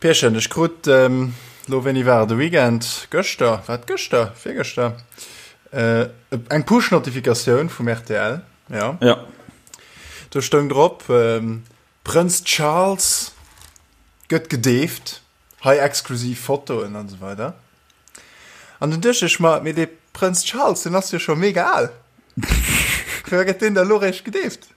Pierchen, ech krut lo, wéini war et, de Weekend, gëschter, war et gëschter, virgëschter, eng Push-Notifikatioun vum rtl, jo. Ja. Do stoung drop, Prënz Charles gëtt gedeeft, hei exklusiv Fotoen an esou weider. An dunn duecht ech mer, mee dee Prënz Charles, deen ass jo scho mega al, firwat gëtt deen da lo réischt gedeeft?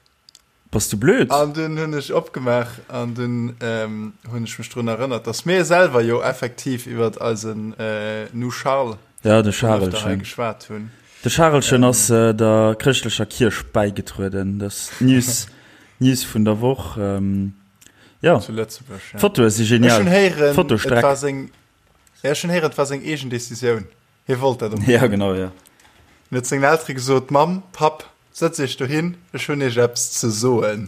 Bass du blöd? An dunn hunn ech opgemaach an dunn ähm, hunn ech mech drun erënnert, dass mir selwer jo effektiv iwwer eisen äh, Nu Charles ja, de Charelchen geschwat hunn. De Charelchen ähm, ass äh, der chrëschtlecher Kierch bäigetrueden. Das News, News vun der Woch. Ähm, ja. Zu Lëtzebuerg. Ja. Fotoe si genial. Ech hunn héieren, Fotostreck. et war seng, ja, ech hunn héieren, et war seng eegen Decisioun. Hie wollt dat unbedéngt. Ja, genau, ja. En huet sengen Eltere gesot, Mamm, Papp, sëtzt iech dohin, ech hunn iech eppes ze soen.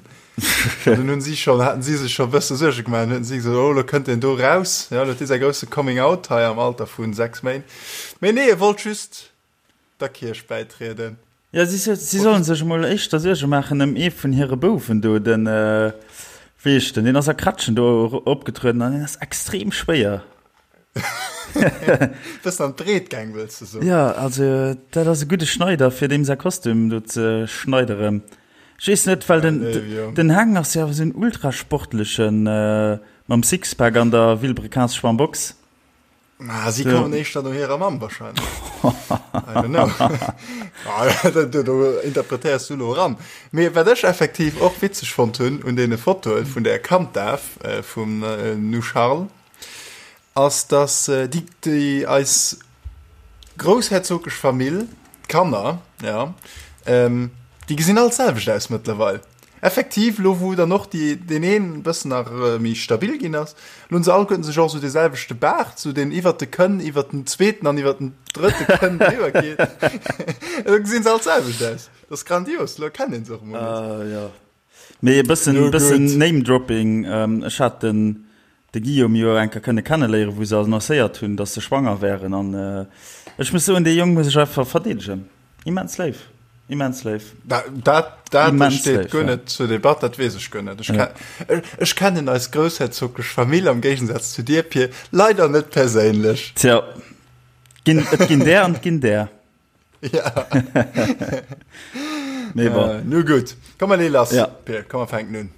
An dunn hunn si schonn, haten si sech scho e bësse Suerge gemaach an hunn si gesot, oh, elo kënnt deen do raus, ja, elo huet dee säi grousse Coming Out hei am Alter vu 6 Méint. Mee nee, e wollt just der Kierch bäitrieden. Ja, si, si sollen sech emol éischter Suerge maachen ëm ee vun hire Bouwen do, den, wéi heescht den, deen ass a Kretschen do opgetrueden an deen ass extrem schwéier. Bëssen an d'Breet gaang, wëlls de soen? Ja, also dat ass e gudde Schneider, fir deem säi Kostüm do ze schneideren. Ech weess net, well den, den Heng ass jo awer esou en ultrasportlechen, mam Sixpack an der Vilebrequins-Schwammbox. Ah, si kommen éischter no hirer Mamm wahrscheinlech. I don't know. Ah, do, do interpretéiers du lo eran. Mee wat ech effektiv och witzeg fonnt hunn un deene Fotoe vun der Kanddaf äh, vum äh, Nu Charles, ass dass äh, déi, déi eis groussherzoglech Famill, d'Kanner, ja, ähm, déi gesinn all d'selwecht aus mëttlerweil. Effektiv, lo wou dann och déi, deen een e bëssen nach méi stabil ginn ass, lo hunn se alleguerten sech och esou dee selwechte Baart, esou deen iwwert de Kënn, iwwert den zweeten an iwwert den drëtte Kënn driwwer geet. Elo gesinn se all d'selwecht aus. Dat ass grandios, lo erkennt een se och emol net. Ah jo. Mee e bëssen, bëssen Name-Dropping, ech hat den de Guillaume jo eng Kéier kënne kenneléieren, wou se annoncéiert hunn, datt se schwanger wären. An ech muss soen, dee Jong muss ech einfach verdeedegen. Immens léif, immens léif. Dat, dat, dat immens steet léif, guer ja. net zur Debatt, dat weess ech guer net. Ech, ja. ech kennen eis groussherzoglech Famill am Géigensaz zu dir, Pir, leider net perséinlech. Tja, ginn, et ginn där an et ginn där. Ja. Nee, bon. Äh, nu gutt. Komm, mer lee lass, ja. Pir, komm, mer fänken un.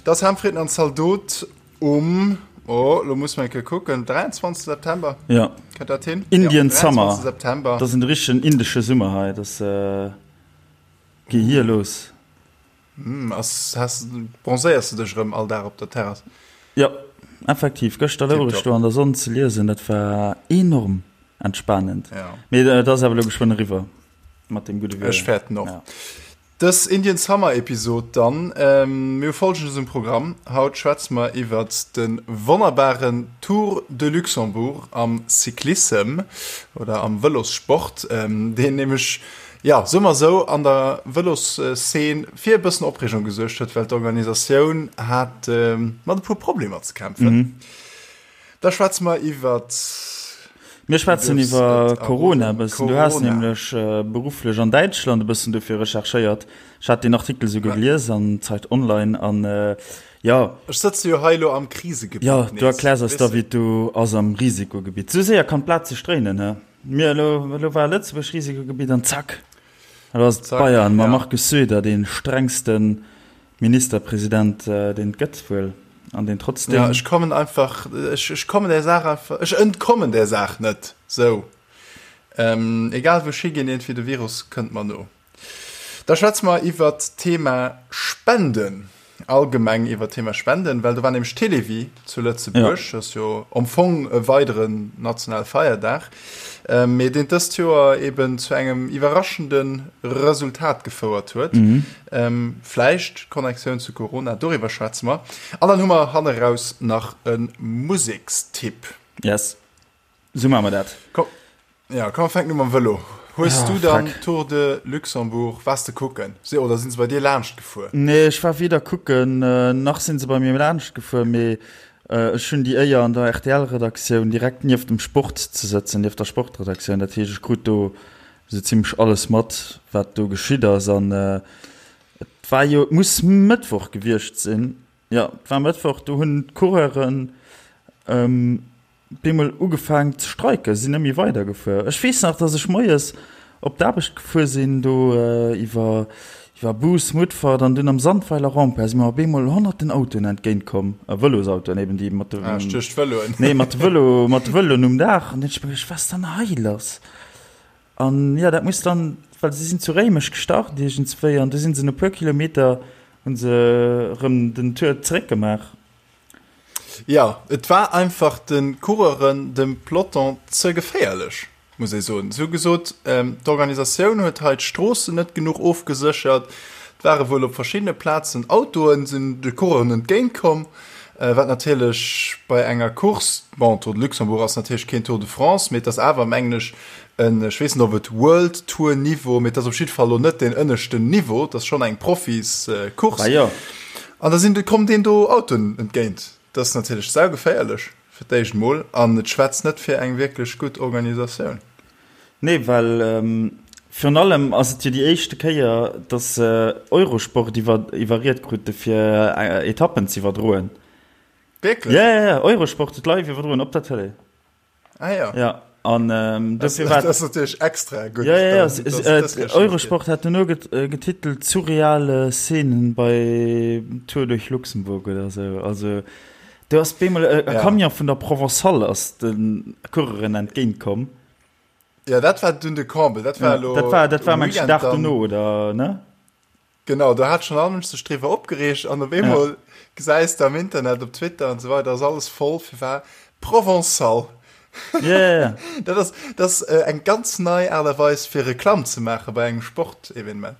Das Hamfritten an Zaldot um oh, lo muss man kucken 23 September ja dat hin Indian ja, Summer September das sind richtigen indische Summer hei das äh, geh hier los Hm, ass, has, bronzéiers de dech erëm all Dag op der Terrass? Jo, effektiv. Gëschter louch ech do an der Sonn ze liesen, dat war enorm entspanend. Ja. Mee et ass awer elo geschwënn eriwwer mat deem gudde Wieder. Ech fäerten och. Ja. Dës Indian Summer Episod dann. Mir hu Folgendes um Programm, Haut schwätze mer iwwert de wonnerbaren Tour de Luxembourg am Cyclissem oder am Vëlossport, deen nämlech Jo, soe mer esou, an der Vëlosszeen fir e bëssen Opreegung gesuergt huet, well d'Organisatioun hat mat e puer Problemer ze kämpfen. Da schwätze mer iwwer. Mir schwätzen iwwer Corona e bëssen. Du has nämlech berufflech an Däitschland e bëssen dofir recherchéiert. Ech hat deen Artikel souguer gelies an Zeit Online an jo. Ech sëtze jo hei elo am Krisegebitt. Jo, du erkläers eis da, wéi et do ass am Risikogebitt. Esou séier kann d'Blat sech dréinen, he? Mir elo, elo war Lëtzebuerg Risikogebitt an zack, elo ass et Bayern mam Markus Söder, dee strengste Ministerpresident, deen et gëtt wuel, an deen trotzdem. Ja, ech kommen einfach, ech, ech kommen där Saach einfach, ech entkommen där Saach net, sou. Egal wou ech higinn, iergendwéi de Virus kënnt mer no. Da schwätze mer iwwert d'Thema Spenden, allgemeng iwwert d'Thema Spenden, well do war nämlech Télévie zu Lëtzebuerg, dat ass jo am Fong e weideren nationale Feierdag, mee deen dëst Joer eben zu engem iwwerraschende Resultat gefouert huet. Vläicht d'Connectioun zu Corona, doriwwer schwätze mer. An dann hu mer hanneraus nach e Musekstipp. Yes, esou maache mer dat. Komm, ja, komm, fänken u mam Vëlo. Hues du dann Tour de Luxembourg, waars de kucken oder sinn se bei dir laanscht gefuer? Nee, ech war weder kucken, nach sinn se bei mir laanscht gefuer, mee ech hunn déi Éier an der RTL-Redaktioun direkt nieft dem Sport ze sëtzen, nieft der Sportredaktioun. Dat heescht, ech krut do esou zimmlech alles mat, wat do geschitt ass. An et war jo, et muss Mëttwoch gewiescht sinn, jo, et war Mëttwoch, do hunn d'Coureuren, Bemol ugefaang ze streiken, sinn net méi weider gefuer. Ech weess nach, dass ech moies op d'Aarbecht gefuer sinn, do iwwer iwwer Bous, Mutfert an dunn am Sandweiler Rond-point si mer op eemol honnerten Autoen entgéint komm, Vëlosautoen eben, déi mat de, Ah, ech duecht Vëloen. nee, mat de Vëlo, mat de Vëloen um Daach. An dunn hunn ech mer geduecht, wat ass dann hei lass? An jo, dat muss dann, well si sinn zu Réimech gestart iergendswéi an du sinn se no puer Kilometer hu se erëm den Tour zeréckgemaach. Jo, et war einfach de Coureuren, dem Peloton ze geféierlech, muss ee soen. Si hu gesot, d'Organisatioun huet hei d'Stroossen net genuch ofgeséchert. Et ware wuel op verschiddene Plazen Autoen, sinn de Coureuren entgéint komm, wat natierlech bei enger Course, bon, Tour de Luxembourg ass natierlech keen Tour de France, mee et ass awer, mengen ech, en, ech weess net, ob et World Tour Niveau, mee et ass op jidde Fall elo net deen ënneschten Niveau, et ass schonn eng Profiscourse. Bah jo. An da sinn, kommen deen do Autoen entgéint. Dat ass natierlech saugeféierlech fir d'éischt emol an et schwätzt net fir eng wierklech gutt Organisatioun. Nee, well virun allem ass et jo déi éischte Kéier, datt se Eurosport iwwer, iwwerriet krute fir Etappen z'iwwerdroen. Wierklech? Ja, ja, ja, Eurosport huet live iwwerdroen op der Tëlee. Ah ja. Ja, an ähm, dofir war Das ass natierlech extra gutt. Ja, ja, ja. dann, dass Äh, das geschafft Eurosport hat duerno get, äh, getitelt surreale Szenen bei Tour durch Luxemburg oder sou. Also do ass bemol e, e Ja. Camion vun der Provençale ass de Coureuren entgéint komm. gëtt. Ja, dat war dunn de Comble. Dat war Ja, elo dat war dat war um mengen Weekend Dag dann. dono oder ne? Genau, do hat schonn all Mënsch sech driwwer opgereegt an op eemol gesäis de am Internet, op Twitter an esou weider, ass alles voll, firwat? Provençal. Ja, ja, ja. Dat ass, dat ass eng ganz nei Aart a Weis fir Reklamm ze maache bei engem Sportevenement.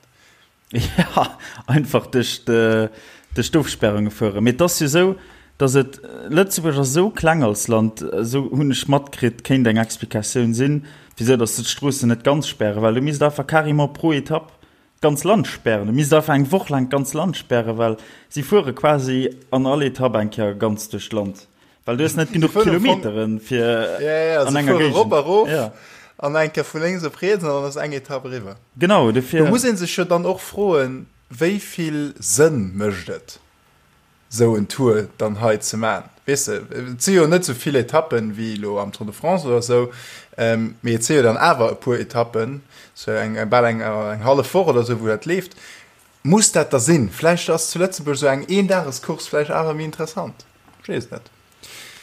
Ja, einfach duerch de, duerch d'Ofsperrunge fueren. Mee et ass jo esou, datt et, Lëtzebuerg ass esou kleng als Land, esou hunn ech matkritt, kéint eng Explikatioun sinn, wisou datt se d'Stroossen net ganz spären, well du misst einfach carrément pro Etapp D'ganz Land spären. Du misst einfach eng Woch laang d'ganz Land spären, well si fuere quasi an all Etapp eng Kéier ganz duerch d'Land. Well du hues net genuch Kilometeren, fir an enger Géigend. Rop a rof an eng Kéier vu lénks op riets an dann ass eng Etapp eriwwer. Genau, dofir. Do muss ee sech jo dann och froen, wéi vill Sënn mécht et? sou en Tour dann hei ze man. Weess de, et si jo net sou vill Etappen wéi elo am Tour de France oder sou, mee et si jo dann awer e puer Etappen, sou eng bal eng eng hallef Woch oder sou wou dat leeft. Muss dat da sinn? Vläicht ass zu Lëtzebuerg sou eng Eendagescourse vläicht awer méi interessant. Ech weess et net.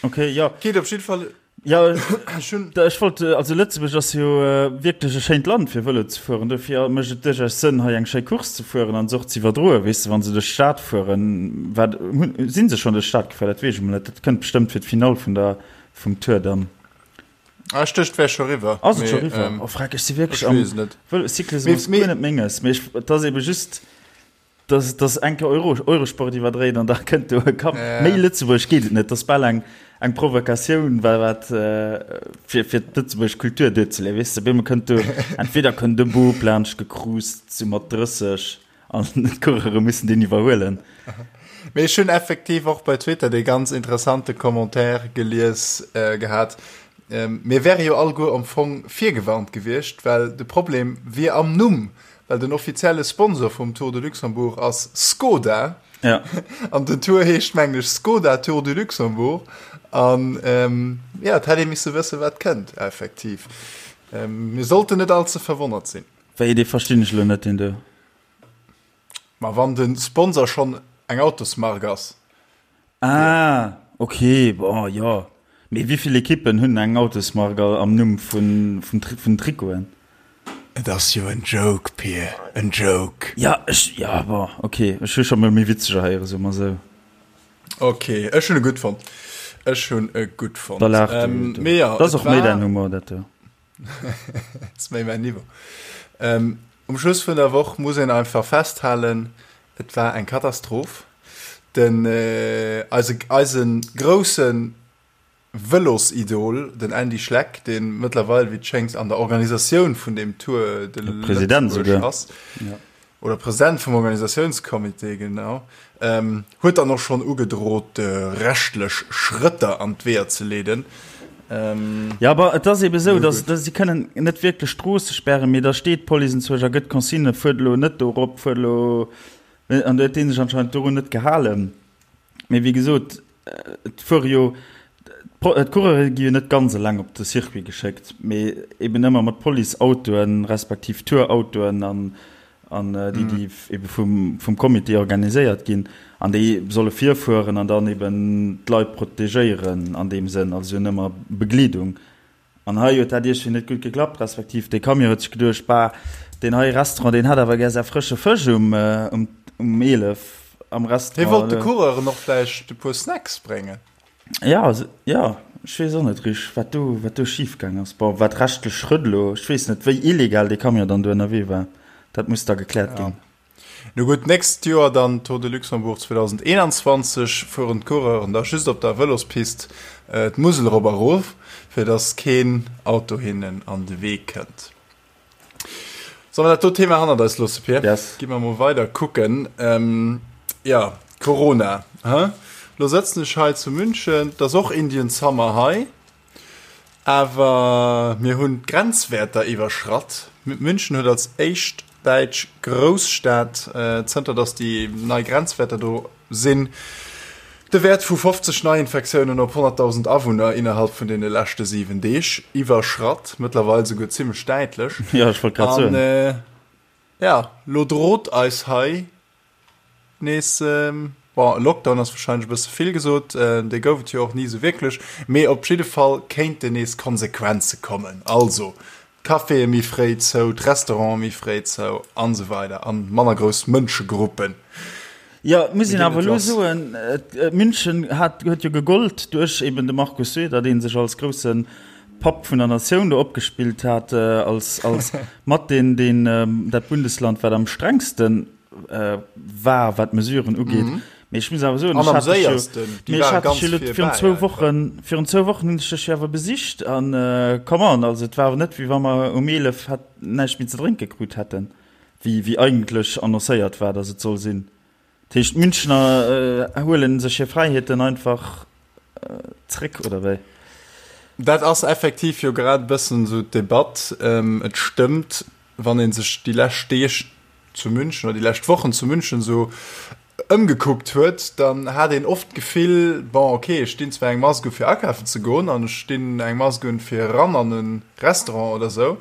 Okay, jo. Geet op jidde Fall. Ja, ech wollt, also Lëtzebuerg ass jo wierklech e schéint Land fir Vëlo ze fueren. Dofir mécht et duerchaus Sënn hei eng schéi Course ze fueren an se och ze iwwerdroen. Weess de, wa se duerch d'Stad fueren, wat hunn, si se schonn duerch d'Stad gefuer? Dat weess ech emol net. Dat kënnt bestëmmt fir d'Finall vun der, vum Tour dann. Ah, ech duecht et wär scho riwwer. Ass et scho riwwer? Oh freck, ech si wierklech am Vëlo-Cyclismus guer net menges. Mee ech, et ass ebe just. Dass dass eng Kéier Euro, Eurosport iwwerdréit an da kënnt do e Kapp. Méi Lëtzebuerg geet et net. Dat ass bal eng eng Provokatioun, wa wat fir fir d'lëtzebuergesch Kultur duerzeleeën. Weess de, op eemol kënnt do, entweder kënnt e Bub laanscht gecruised, sou mat 30, an d'Coureure mussen deen iwwerhuelen. Mee ech hunn effektiv och bei Twitter dee ganz interessante Commentaire gelies gehat, mir wäre jo alleguer am Fong virgewarnt gewiescht, well de Problem wier am Numm. Well den offizielle Sponsor vum Tour de Luxembourg ass Skoda. Ja. An den Tour heescht mengen ech Skoda Tour du Luxembourg. An ähm, ja, et hätt ee misse wësse wat kënnt, effektiv. Ähm, mir sollten net all ze verwonnert sinn. Wéi, dee verstinn ech elo net, deen do. Ma wann de Sponsor schonn eng Autosmark ass. Ah, ok, bon, jo. Mee wéi vill Ekippen hunn eng Autosmark am Numm vun vun Trikoten? Et ass jo en Joke, Pir, en Joke. Ja, ech, ja, bon, ok, ech hu scho mol méi witzeger héieren, soe mer esou. Ok, ech hunn e gutt fonnt. Ech hunn e gutt fonnt. Da laach du. Mee jo, Dat ass och méi däin Humor, dat do. Ass méi mäin Niveau. Um Schluss vun der Woch muss een einfach festhalen, et war eng Katastroph. Den, eise, eise groussen. Vëlosidol, den Andy Schleck, dee mëttlerweil, wéi et schéngt, an der Organisatioun vun deem Tour de Lëtzebuerg ass, oder President vum Organisatiounscomité, genau, huet dann och schonn ugedrot, rechtlech Schrëtter an d'Weeër ze leeden. Jo, awer et ass eebe esou, datt si kënnen net wierklech Stroosse spären, mee da steet d'Police enzwousch a gëtt Consignen, fuert elo net do erop, fuert elo, an do huet dee sech anscheinend dorun net gehalen. Mee wéi gesot, et fuere jo, d'Coureure gi jo net ganz eleng op de Circuit geschéckt, mee eben ëmmer mat Policeautoen, respektiv Tourautoen an an déi, déi ebe vum vum Comité organiséiert ginn. An déi solle virfueren an dann eben d'Leit protegéieren an deem Sënn, also si hunn ëmmer Begleedung. An hei huet dat iergendwéi net gutt geklappt, respektiv dee Camion huet sech geduecht, Bah, deen hei Restaurant, deen hätt awer gär säi frësche Fësch um um 11 am Restaurant. Hie wollt de Coureuren och vläicht e puer Snacks bréngen. Ja, ja, ech weess och net richteg, wat do, wat do schifgaang ass. Bon, wat rechtlech Schrëtt elo, ech weess net, wéi illegal dee Camion dann do ënnerwee war, dat muss da gekläert ginn. Nu gutt, d'nächst Joer dann Tour de Luxembourg 2021, fueren d'Coureuren da just op der Vëlospist d'Musel erop a rof, fir dass keen Auto hinnen an de Wee kënnt. Solle mer dat do Thema hannert eis loosse, Pir? Yes. Gi mer mol weider kucken. Jo, Corona, he? Lo sëtzen ech hei zu München, 't ass och Indian Summer hei. Awer mir hunn d'Grenzwäerter iwwerschratt. München huet als éischt däitsch Grousstad, zënter datt déi nei Grenzwäerter do sinn, de Wäert vu 50 Neiinfektiounen op 100.000 Awunner innerhalb vun deene leschte 7 Deeg iwwerschratt. Mëttlerweil souguer zimmlech däitlech. Jo, ech wollt grad soen. An jo, lo drot eis hei Nees, bon, e Lockdown ass warscheinlech e bësse vill gesot, dee gouf et jo och ni esou wierklech, mee op jidde Fall kéinten nees Konsequenze kommen, also d'Caféë méi fréi zou, d'Restaurante méi fréi zou an esou weider an manner grouss Mënschegruppen. Jo, et muss een awer elo soen, München hat, huet jo gegollt duerch eben de Markus Söder, dee sech als grousse Papp vun der Natioun do opgespillt hat, als, als mat deen, deen dat Bundesland, wat am strengsten war, wat d'Mesuren ugeet. Mhm. Mee ech muss awer soen, ech hat dech jo, mee ech hat dech jo virun zwou Wochen, virun zwou Wochen hunn ech dech jo awer besicht an come on, also et war awer net, wéi wa mer um 11 hätt näischt méi ze drénke krut hätten, wéi, wéi eigentlech annoncéiert war, datt et soll sinn. Dat heescht, d'Münchner huelen sech hir Fräiheeten einfach zréck, oder wéi? Dat ass effektiv jo grad e bëssen esou d'Debatt. Et stëmmt, wann ee sech déi lescht Deeg zu München oder déi lescht Wochen zu München esou ëmgekuckt huet, dann hat een oft d'Gefill, bon ok, ech dinn zwar eng Mask u fir akafen ze goen an ech dinn eng Mask un fir eran an e Restaurant oder esou,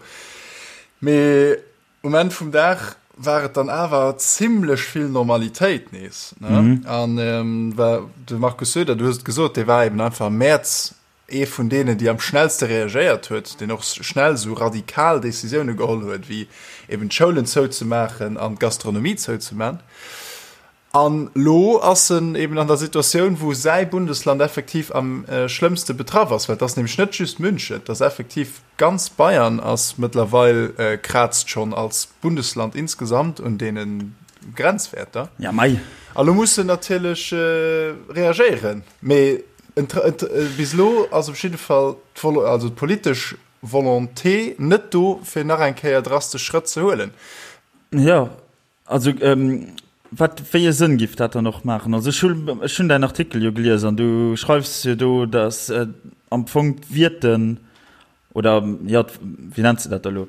mee um Enn vum Dag war et dann awer zimlech vill Normalitéit nees. Ne? An ähm, de Markus Söder, du hues et gesot, dee war eben einfach am Mäerz Ee vun deenen, déi am schnellste reagéiert huet, deen och schnell esou radikal Decisioune geholl huet, wéi eben d'Schoulen zouzemaachen an d'Gastronomie zouzeman. An elo ass en eben an der Situatioun, wou säi Bundesland effektiv am schlëmmste betraff ass, well et ass nämlech net just München, et ass effektiv ganz Bayern ass mëttlerweil, kraazt schonn als Bundesland insgesamt un deene Grenzwäerter. Ja mei. A lo muss en natierlech reagéieren. Mee Bis elo ass op jidde Fall also d'politesch Volonté net do, fir nach eng Kéier drastesch Schrëtt ze huelen. Jo, also wat, wéi e Sënn giff dat dann och maachen? Also ech hunn, ech hunn däin Artikel jo gelies an du schreifs jo do, datt am Fong d'Wierten oder jo, wéi nenns de dat da elo,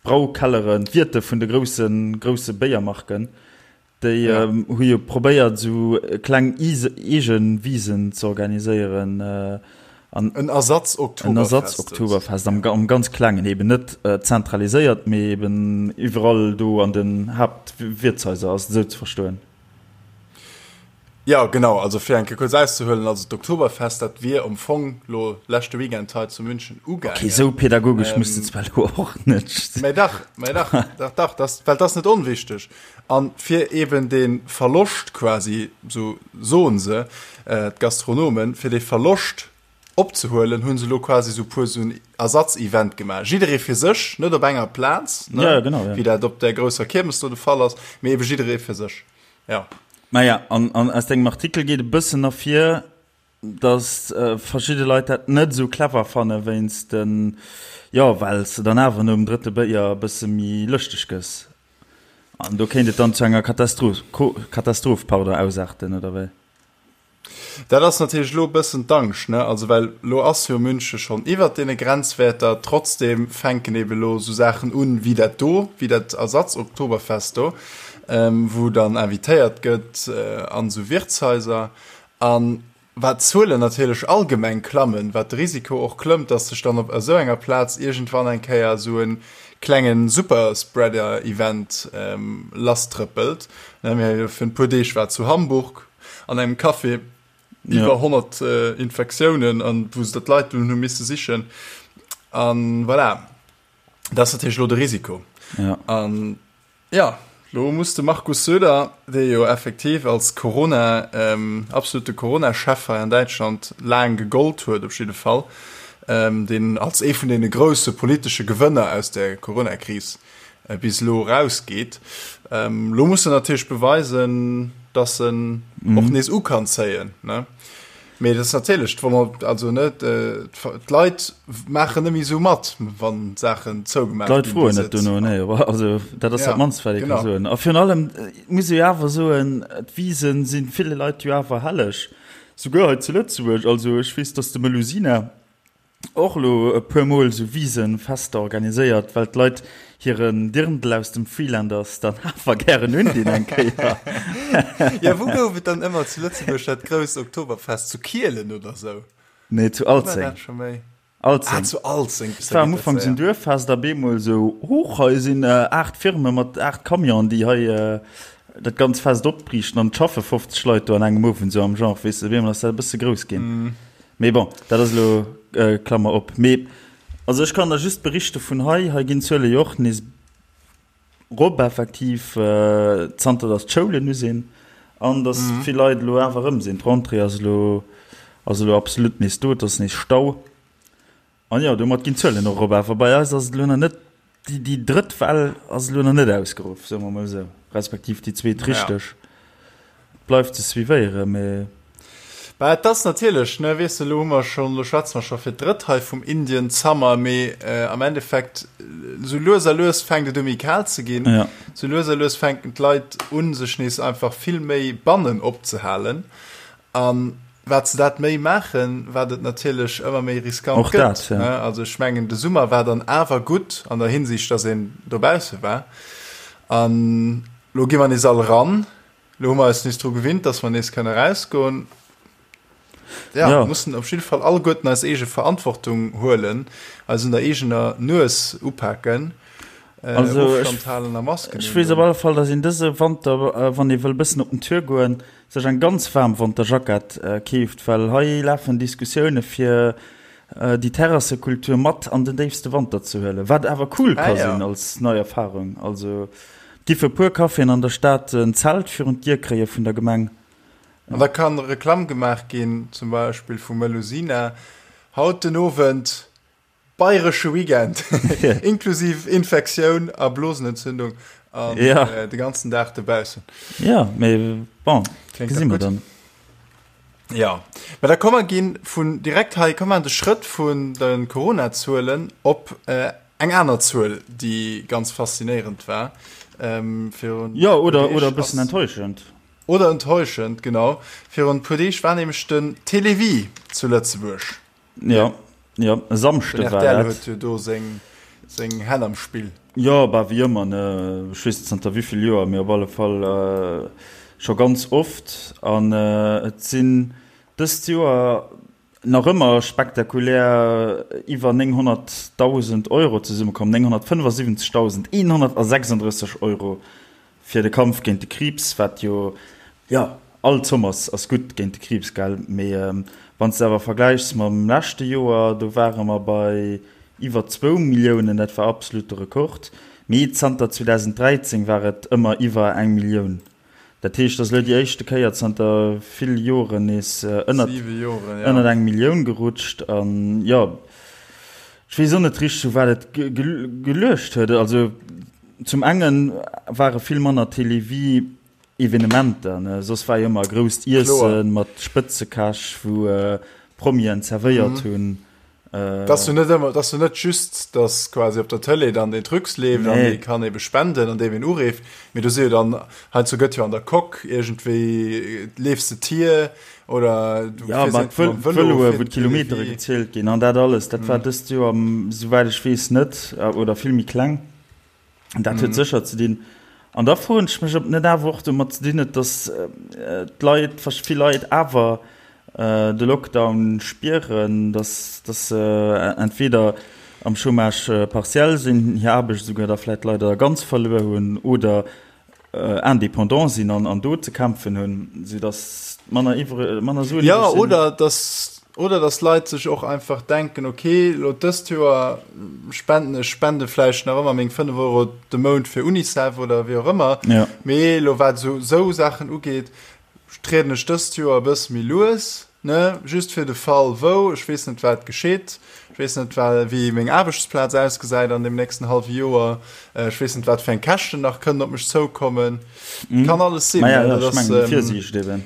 d'Braukelleren, d'Wierte vun de groussen, grousse Béiermarken, Déi hu jo probéiert esou kleng eege Wisen ze organiséieren. En Ersatz-Oktoberfest. En Ersatz-Oktoberfest am ganz klengen, eben net zentraliséiert, mee eben iwwerall do an den Haaptwiertshaiser, ass et esou ze verstoen? Jo, genau. Also fir eng Kéier kuerz auszehuelen, also d'Oktoberfest, dat wier am Fong lo leschte Weekend hei zu München ugaangen. Okay, esou pädagogesch muss de zwar lo och net. Mä dach, mä dach, dach, dach, dat, well dat ass net onwichteg. A fir eben dee Verloscht quasi, esou soen se, d'Gastronomen, fir dee Verloscht opzehuelen, hu se lo quasi esou puer esou en Ersatzevent gemaach. Jidderee fir sech, net op enger Plaz, ne, ja, genau, ja. wéi dat op där grousser Kiermes do de Fall ass, mee ebe jidderee fir sech. Ja. Maja, an, an aus dengem Artikel geet e bëssen ervir. Dass verschidde Leit dat net esou clever fanne wéinst den, jo, well s de dann awer nom drëtte Béier e bësse méi lëschteg gëss. An do kéint et dann zu enger Katastroph, Katastroph, pardon, ausaarten, oder wéi? Dat ass natierlech elo e bëssen d'Angscht, ne? Also well elo ass jo Münche schonn iwwert deene Grenzwäerter, trotzdeem fänken ebe elo esou Saachen un wéi dat do, wéi dat Ersatz-Oktoberfest do, wou dann invitéiert gëtt an esou Wirtshaiser. An wat d'Zuelen natierlech allgemeng klammen, wat de Risiko och klëmmt, dass sech dann op esou enger Plaz iergendwann eng Kéier esou e klenge Superspreader-Event lasstrëppelt. Mir hu jo virun e puer Deeg war zu Hamburg an engem Café iwwer 100 Infektiounen, an wou se d'Leit dunn hu misse sichen. An voilà, dat ass natierlech elo de Risiko. An Jo, lo muss de Markus Söder, dee jo effektiv als Corona, absolute Corona-Chef hei an Däitschland laang gegollt huet, op jidde Fall, deen als ee vun deene grousse politesche Gewënner aus der Corona-Kris bis elo erausgeet, lo muss en natierlech beweisen, datt en och nees u kann zéien. Mee dat ass natierlech, also ne, d'Leit maachen net méi esou mat, wann Saachen zougemaach ginn. D'Leit froen net dono, nee, also dat ass dat mannst, wat ee ka soen. A virun allem muss ee jo awer soen, d'Wisen si ville Leit jo awer helleg, souguer hei zu Lëtzebuerg. Also ech weess, datt de Melusina och elo e puer Mol esou Wisenfester organiséiert, well d'Leit hiren Dirndl aus dem Freelanders dann awer gären undinn eng Kéier. Ja, wou gouf et dann ëmmer zu Lëtzebuerg dat grousst Oktoberfest? Zu Kielen oder sou? Nee, zu Alzeng. Alzeng. Ah, zu Alzeng. Et war am Ufank esou en Duerffest a bemol esou, Huch, hei sinn 8 Firme mat 8 Camionen, déi hei dat ganz Fest opbriichten an et schaffe 50 Leit do an engem Owend, esou am Genre, weess de, bemol ass dat e bësse grouss ginn. Mee bon, dat ass elo, Klammer op. Mee also ech kann der just berichte vun hei. Hei ginn d'Zuele jo och nees rop effektiv, zanter datt d'Schoulen u sinn an datt vill Leit elo awer erëm sinn. D'Rentrée ass elo, ass elo absolut nees do, et ass nees Stau. An jo, domat ginn d'Zuelen och erop. Awer bei eis ass et elo nach net, déi, déi drëtt Well ass elo nach net ausgeruff, soe mer mol esou, respektiv déi zweet richteg. Et bleift ze suivéieren, mee. Bah, et ass natierlech, ne, weess de, elo hu mer schonn, elo schwätze mer scho fir d'drëtt hei vum Indian Summer, mee am Endeffekt, esou lues a lues fänkt et u méi kal ze ginn, esou lues a lues fänken d'Leit u sech nees einfach vill méi bannen opzehalen. An wat se dat méi maachen, wat et natierlech ëmmer méi riskant Och gëtt. dat, ja. Also ech mengen, de Summer war dann awer gutt an der Hinsicht, datt een dobausse war. An lo gi mer nees all eran. Lo hu mer eis nees dru gewinnt, datt mer nees kënne erausgoen. Ja, Ja. mussen op jidde Fall alleguerten eis eege Verantwortung huelen, eis un der eegener Nues upaken, Also ech, Ofstand halen a Masken ech weess op undoen. alle Fall, datt een dëse Wanter, wann ee wëll bëssen op den Tour goen, sech eng ganz waarm Wanterjackett keeft, well hei lafen Diskussioune fir déi Terrassekultur mat an den déifste Wanter ze huelen, wat awer cool ka sinn als nei Erfarung. Also et gi fir e puer Caféen an der Stad en Zelt virun d'Dier kréie vun der Gemeng. An da kann Reklamm gemaach ginn, zum Beispill vu Melusina, haut den Owend Bayresche Weekend, inklusiv Infektioun a Blosenentzündung an ja. äh, de ganzen Dag dobaussen. Ja, mee bon, gesi mer dann. Ja, mä da komme ginn vun direkt hei komm an de Schrëtt vun de Corona-Zuelen op äh, eng aner Zuel, déi ganz faszinéierend war. Ähm, virun ja, oder, oder e bëssen enttäuschend. Oder enttäuschend, genau. Virun e puer Deeg war nämlech den Télévie zu Lëtzebuerg. Ja, ja, e Samschde war dat. huet jo do seng, seng Hänn am Spill. Jo, bah, wéi ëmmer, ne? Ech weess net zanter wéi vill Joer, mee op alle Fall scho ganz oft. An et sinn dëst Joer nach ëmmer spektakulär iwwer 900.000 Euro zesummekomm, 975.136 Euro Fir de Kampf géint de Kriibs, wat jo, jo, all Zomm ass, ass gutt géint de Kriibs, gell, mee wann s de awer vergläichs mam leschte Joer, do ware mer bei iwwer zwou Milliounen, dat war absolute Rekord, mee zanter 2013 war et ëmmer iwwer eng Millioun. Dat heescht, et ass elo déi éischte Kéier zanter ville Joren nees ënnert, ënnert eng Millioun gerutscht an, jo, ech weess och net richteg, u wat et geluecht huet. Also, Zum enge ware vill manner Télévie. Evenementer, ne? Soss war jo ëmmer e grousst Iessen mat Spëtzekäch, wou Promien zerwéiert hunn. Dass du net ëmmer, dass du net just, dass quasi op der Tëlee dann den Trucs leeft an dee kann ebe spenden an deem een ureeft, mee do si jo dann, heiansdo gëtt jo an der Coque iergendwéi, leefs de Tier oder du Ja, fiers mat iergendwou mam Vëlo, Vëloe, wou d'Kilometere gezielt ginn an dat alles, dat war dëst Joer, souwäit ech weess, net oder vill méi kleng. Dat huet sécher ze dinn. An da froen ech mech, ob net awer och domat ze dinn huet, datt d'Leit, vill Leit awer de Lockdown spieren, datt datt se entweder am Chômage partiel sinn, hir Aarbecht esouguer da vläicht leider ganz verluer hunn oder indépendant sinn an an do ze kämpfen hunn, soudatt manner iwwre manner Suen iwwreg sinn. Oder dass, oder dass Leit sech och einfach denken, okay, elo dëst Joer spenden ech spende vläicht nach ëmmer meng 5 Euro de Mount fir Unicef oder wéi och ëmmer, ja. mee elo wat esou esou Saachen ugeet, trieden ech dëst Joer e bësse méi lues. Ne, just fir de Fall wou, ech weess net wat geschitt, ech weess net wéi meng Aarbechtsplaz ausgesäit an deem nächsten hallwe Joer, ech weess net wat fir eng Käschten nach kënnen op mech zoukommen. Kann alles sinn. Maja, jo, ech mengen déi Virsiicht eben.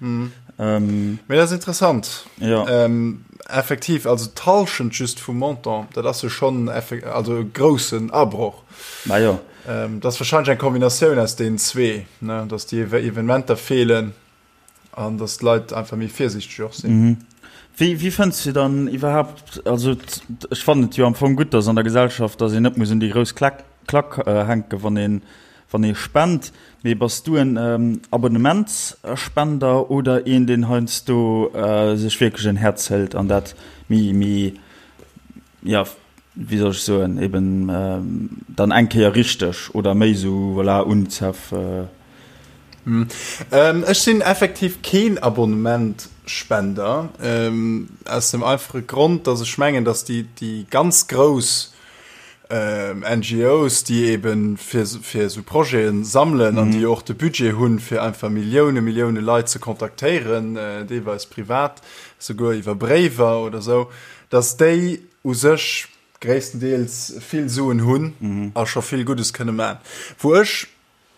Mee dat ass interessant. Jo. Effektiv, also d'Hallschent just vum Montant, dat ass jo schonn also e groussen Abroch. Majo. Dat ass warscheinlech eng Kombinatioun aus deenen zwee, ne, datt déi Evenementer feelen. An dass d'Leit einfach méi virsiichteg och sinn. Mhm. Wéi, wéi fënns du dann iwwerhaapt, also ech fannen et jo am Fong gutt, dass an der Gesellschaft, dass een net muss un déi grouss Klack, Klack hänken, wann een, wann ee spent, mee bass du en Abonnementsspender oder een, deen heiansdo sech wierklech en Häerz hëlt an dat méi, méi, jo, wéi soll ech soen, eben dann eng Kéier richteg oder méi esou, voilà, Unicef. Ech sinn effektiv keen Abonnementspender, aus dem einfache Grond, datt ech mengen, datt déi, déi ganz grouss NGOs, déi eben fir, fir esou Projete sammelen an déi och de Budget hunn, fir einfach Millioune, Millioune Leit ze kontaktéieren, deelweis privat, souguer iwwer Bréiwer oder esou, datt déi u sech gréisstendeels vill Suen hunn a scho vill Guddes kënne man. Wou ech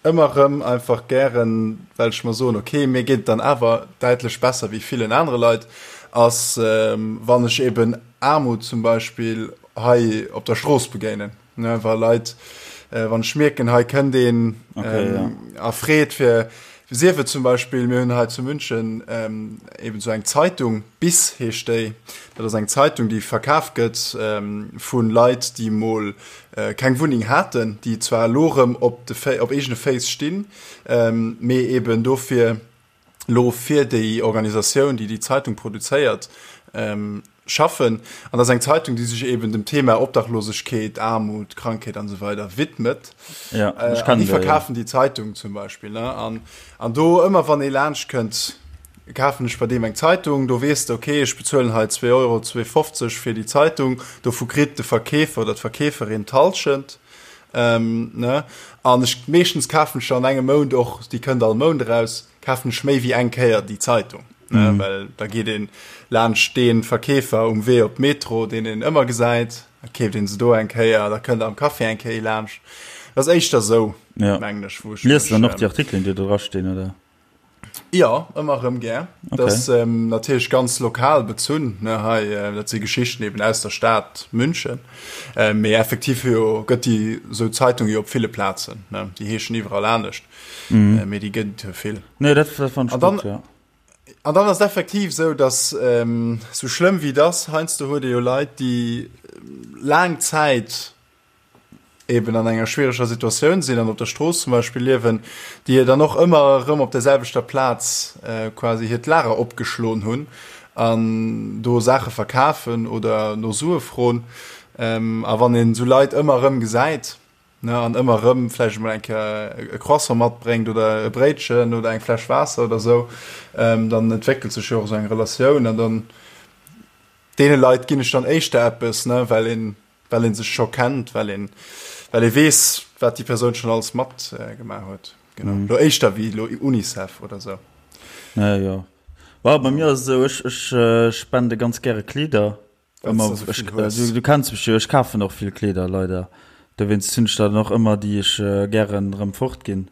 ëmmer erëm einfach gären, well ech mer soen, ok, mir geet et dann awer däitlech besser wéi villen anere Leit, ass wann ech eben Aarmut zum Beispill hei op der Strooss begéinen, ne, wa Leit, wann ech mierken, hei kënnt een a freet fir, sief et zum Beispill, mir hunn hei zu München eben esou eng Zeitung, Bis heescht déi, dat ass eng Zeitung, déi verkaf gëtt vu Leit, déi mol keng Wunneng haten, déi zwar elo erëm op de op eegene Féiss stinn, mee eben dofir elo fir déi Organisatioun, déi déi Zeitung produzéiert, schaffen. An dat ass eng Zeitung, déi sech eben dem Thema Obdachlosegkeet, Aarmut, Krankheet an esou weider widmet. Ja, ech kennen déi, ja. Déi verkafen déi Zeitung zum Beispill, ne? An, an do ëmmer wann ee laanscht kënnt, kafen ech bei deem eng Zeitung, do weess de, okay, ech bezuelen hei zwee Euro, 2,50 fir déi Zeitung, dovu kritt de Verkeefer oder d'Verkeeferin d'Hallschent, ne? An ech, meeschtens kafen ech an engem Mount och, déi kënnt all Mount eraus, kafen ech méi wéi eng Kéier déi Zeitung, ne? Well da geet ee laanscht dee Verkeefer um Wee op d'Metro, deen een ëmmer gesäit, da keeft ee se do eng Kéier, da kënnt am Café eng Kéier ee laanscht. Dat ass éischter esou, mengen ech, wou ech mech. Liest de dann och déi Artikelen, déi do drastinn, oder? Jo, ëmmer erëm gär. Okay. Dat ass ähm, natierlech ganz lokal bezunn, ne, hei, äh, dat si Geschichten eben aus der Stad München. Äh, mee effektiv jo gëtt déi sou Zeitung jo op ville Plazen, ne, déi heeschen iwwerall anescht, mm. äh, mee déi gëtt jo vill. Nee, dat, dat fand ich gut, ja. An dann ass effektiv sou, dass ähm, sou schlëmm wéi das, heiansdo huet ee jo Leit, déi laang Zäit eben an enger schwiereger Situatioun sinn an op der Strooss zum Beispill liewen, déi dann och ëmmer erëm op der selwechter Plaz quasi hiert Lager opgeschloen hunn an do Saache verkafen oder no Sue froen. A wann een esou Leit ëmmer erëm gesäit, ne, an ëmmer erëm vläicht emol eng Kéier e Croissant matbréngt oder e Bréitchen oder eng Fläsch Waasser oder esou, dann entwéckelt sech jo och esou eng Relatioun an dann deene Leit ginn ech dann éischter eppes, ne, well een Well een sech scho kennt, well een, well ee weess, wat déi Persoun schonn alles mat gemaach huet. Genau. Mm. Lo éischter wéi lo Unicef oder sou. Ja, jo. Well, bei mir ass et esou, ech, ech äh, spende ganz gäre Kleeder. Ëmmer, du, ech, äh, du, du kenns mech jo, ech kafen och vill Kleeder, leider. Dowéinst hunn ech dann och ëmmer, déi ech äh, gären erëm fortginn.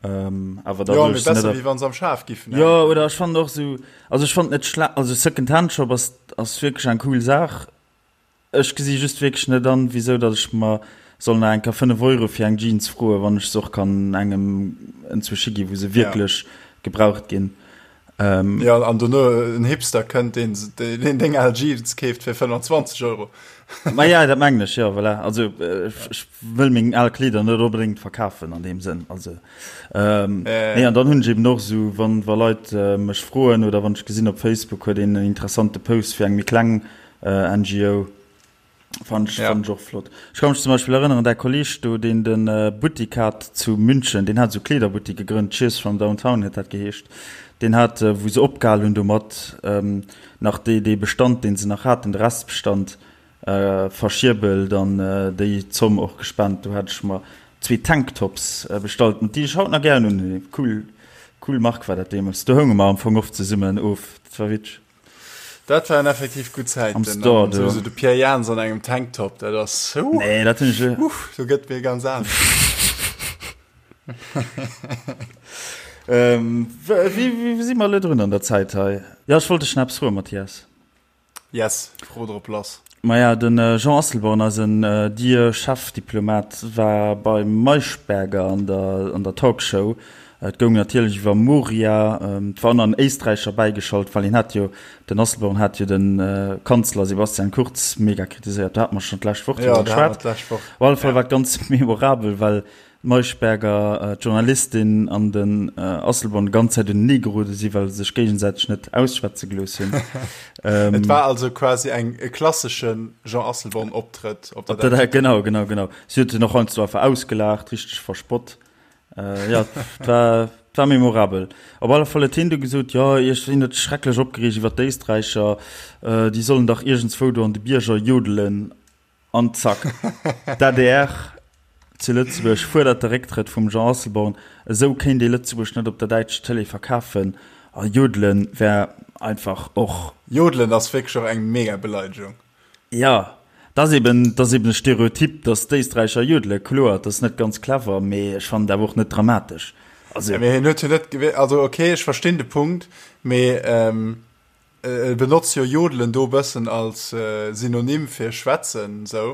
Ähm, awer da jo, besser, wéi wann se am Schaf giffen. Jo, oder ech fand och sou, also ech fand net schlecht, also Second-Hand-Shop ass, ass wierklech eng cool Saach. Ech gesi just wierklech net an, wisou datt ech mer soll nach eng Kéier 5 Euro fir eng Jeans froen, wann ech se och kann engem enzwousch gi wou se wierklech ja. gebraucht ginn. Ähm, ja, an dono en Hipster kënnt, deen, deen deng al Jeans keeft fir 25 Euro. Ma ja, dat mengen ech, ja, voilà. Also äh, ech wëll meng al Kleeder net onbedéngt verkafen an deem Sënn. Also, ähm, äh. nee, an dann hunn ech eben och sou, wann wa Leit äh, mech froen oder wann ech gesinn op Facebook huet een en interessante Post fir eng méi kleng äh, NGO, Fand ech, ja. fand ech och flott. Ech kann mech zum Beispill erënneren, däi Kolleg do, deen den äh, Buttik hat zu München, deen hat sou Kleederbuttik gegrënnt, Cheers from Downtown huet dat geheescht. Deen hat, äh, wou se opgehal hunn domat, ähm, nach dee, dee Bestand, deen se nach haten, de Restbestand, äh, verschierbelt an äh, déi Zomm och gespent. Do hat ech mer zwee Tanktops äh, bestallt, déi ech haut nach gären un. Cool, cool Mark war dat deemools. Do hounge mer am Fong oft zesummen of. Dat war witzeg. Dat waren effektiv gutt Zäiten. Am Store, du. Sowieso de Pierre Jans an engem Tanktop, dat ass. Uh, nee, dat hunn ech. Uff, do gëtt mir ganz anescht. ähm, wéi, wéi si mer elo drun an der Zäit hei? Ja, ech wollt dech nach eppes froen, Mathias. Yes, fro drop lass. Maja, de Jean Asselborn, eisen dear Chefdiplomat, war beim Maischberger an der an der Talkshow. Et goung natierlech iwwer Moria. Et war och nach en Éisträicher bäigeschalt, well hien hat jo, den Asselborn hat jo de Kanzler Sebastian Kurz mega kritiséiert. Do hate mer schonn d'lescht Woch driwwer geschwat. Op alle Fall war et ganz memorabel, well d'Maischberger, d'Journalistin an den Asselborn déi ganz Zäit unenee gerode sinn, well se sech géigesäiteg net ausschwätze gelooss hunn. Et war also quasi eng e klassesche Jean Asselborn-Optrëtt op der däitscher Tëlee. Genau, genau, genau. Si huet en och heiansdo einfach ausgelaacht, richteg verspott. Jo, et war, et war memorabel. Op alle Fall huet hien du gesot, jo, ech sinn net schrecklech opgereegt iwwer d'Éisträicher, déi sollen dach iergendswou do an de Bierger jodelen. An zack, d'ADR zu Lëtzebuerg fuerdert de Récktrëtt vum Jean Asselborn. Esou kéint ee Lëtzebuerg net op der däitscher Tëlee verkafen. A jodelen wär einfach och. Jodelen ass wierklech och eng mega Beleidegung. Jo, dat ass eben, dat ass eben e Stereotyp, datt d'Éisträicher jodelen. Kloer, dat ass net ganz clever, mee ech fannen et awer och net dramatesch. Also. Mee hien huet jo net, also ok, ech verstinn de Punkt, mee E benotzt jo jodelen do bëssen als Synonym fir schwätzen sou.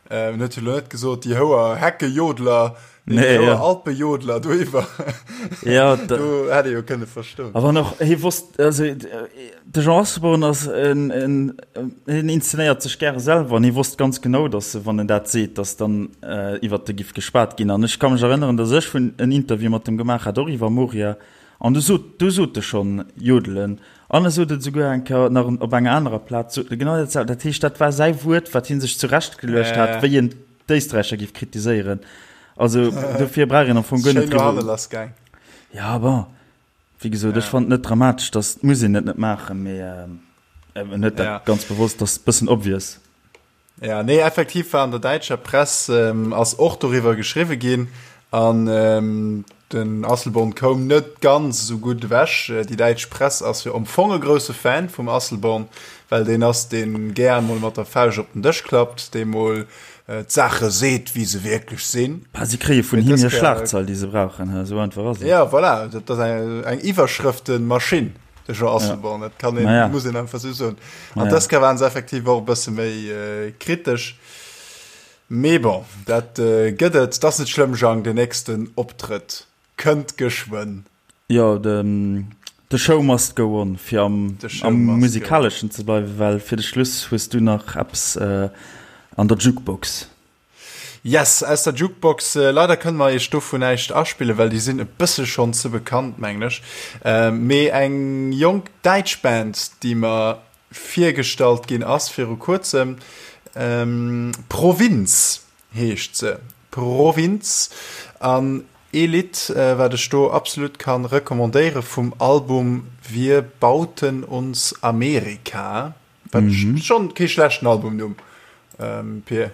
En huet jo lo net gesot déi houer Heckejodler, déi houer Alpejodler do iwwer. Ja, do hätt ee jo kënne verstoen. A wann och hie wosst, also de Jean Asselborn ass en, en, hien inszenéiert sech gäre selwer an hie wosst ganz genau, datt wann en dat seet, datt dann iwwert e giff geschwat ginn. An ech ka mech erënneren, datt ech vun en Interview mat em gemaach hat, och iwwer Moria, an du sot, du sot e schonn jodelen. An e sot et esouguer eng Kéier nach op enger anerer Plaz, sot e genau dat selwecht. Dat heescht, dat war säi Wuert, wat hie sech zurechtgeluecht hat, wéi en d'Éisträicher géif kritiséieren. Also dofir brauch een am Fong guer net driwwer. Ja, bon, wéi gesot, ech fannen et net dramatesch, dass, muss een et net maachen, mee en huet dat ganz bewosst, dat ass e bëssen obvious. Ja, nee, effektiv war an der däitscher Press ähm, ass och doriwwer geschriwwe ginn an ähm, den Asselborn koum net ganz esou gutt ewech. Äh, déi däitsch Press ass jo am Fong e grousse Fan vum Asselborn, well deen ass, deen gär mol mat der Fauscht op den Dësch klappt, dee mol äh, d'Saache seet, wéi se wierklech sinn. Bah, si kréie vun him hir Schlagzeil, déi se brauchen, esou einfach ass et. Ja, voilà, dat ass eng, eng Iwwerschrëftenmaschinn. De Jean Asselborn, dat kann een, ja. muss een einfach sou soen. An dës Kéier waren se effektiv och e bësse méi äh, kritesch. Mee bon, dat äh, gëtt et. Dat ass net schlëmm, Jang, den nächsten Optrëtt kënnt geschwënn. Jo, de, the show must go on, fir am, am Musikaleschen ze bleiwen, well fir de Schluss hues du nach eppes äh, an der Jukebox. Yes, aus der Jukebox. Leider kënne mer iech dovun näischt aspillen, well déi sinn e bësse schonn ze bekannt, mengen ech. Mee eng jonk däitsch Band, déi mer virgestallt ginn ass viru kuerzem, Provinz heescht se, Provinz. An ee Lidd, wat ech do absolut ka recommandéiere vum Album Wir bauten uns Amerika. Wat mhm. schon kee schlechten Albumnumm. Ähm, Pier.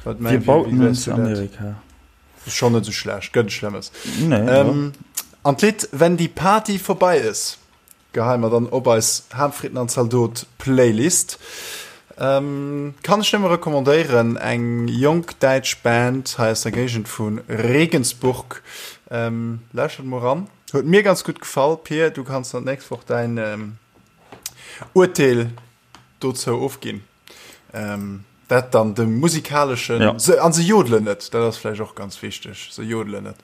Wat mein, Wir bauten uns Amerika. Schon net so schlecht, gëtt schlimmes. Nee, ähm, an d'Lidd Wenn die Party vorbei ist, geheien mer dann op eis Hamfritten an Zaldot Playlist. Ähm, kann ech nëmme recommandéieren, eng jonk däitsch Band hei aus der Géigend vu Regensburg. Ähm, lauschtert mol ran. Huet mir ganz gutt gefall. Pir, du kanns dann d'nächst Woch däin ähm, Urteel dozou ofginn. Ähm, dat dann de musikaleschen ja. se, an se jodelen net, dat ass vläicht och ganz wichteg, se jodelen net.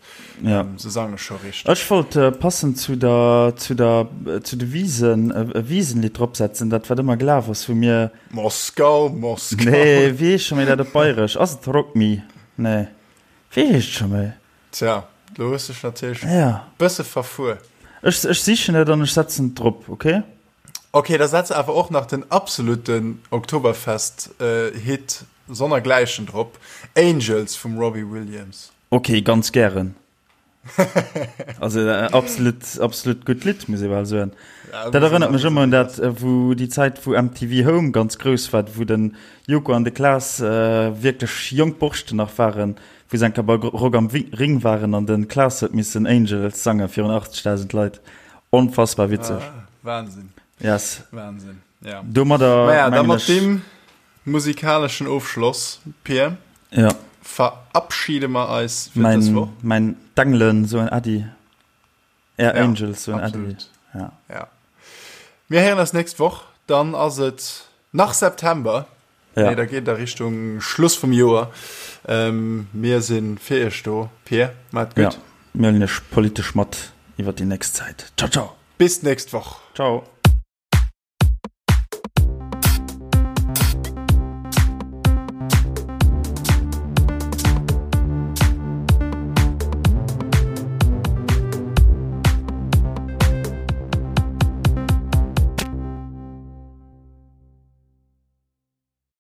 Ja. Ähm, se sange scho richteg. Ech wollt äh, passend zu der, zu der, äh, zu de Wisen äh, e Wiesenlied dropsetzen, dat wat ëmmer gelaf ass, wou mir. Moskau, Moskau. Nee, wéi heescht scho méi dat op Bayresch? Ass et Rock Me? Nee. Wéi heescht scho méi? Tja, lo hues dech natierlech ja. bësse verfuer. Ech, ech sichen et an ech setzen et drop, okay? Ok, da setz awer och nach den absoluten Oktoberfest Hit sonnergläichen drop, Angels vum Robbie Williams. Ok, ganz gären. Also absolut, absolut gutt Lidd, muss ee bal soen. Dat erënnert mech ëmmer un dat, wou déi Zäit, wou MTV Home ganz grouss war, wou den Joko an de Klaas wierklech jonk Borschten nach waren, wou se eng Kéier bei Rock am Ring waren an de Klaas huet missen Angels sange virun 80.000 Leit. Onfassbar witzeg. Ah, Wahnsinn. Yes. Wahnsinn, ja. Domadder Maja, da mat deem musikalischen Ofschloss, Pir, ja. verabschiede mer eis fir dës Woch. Mein D'Engelen soen Äddi. Är ja, Angels soen Äddi. Ja. ja. Mir héieren eis nächst Woch, dann ass et nach September. Ja. Nee, da geet a Richtung Schluss vum Joer. Ähm, mir sinn fir iech do. Pir, maat gutt. Ja, mir huelen iech politesch mat iwwer déi nächst Zäit. Ciao, ciao. Bis d'nächst Woch. Ciao.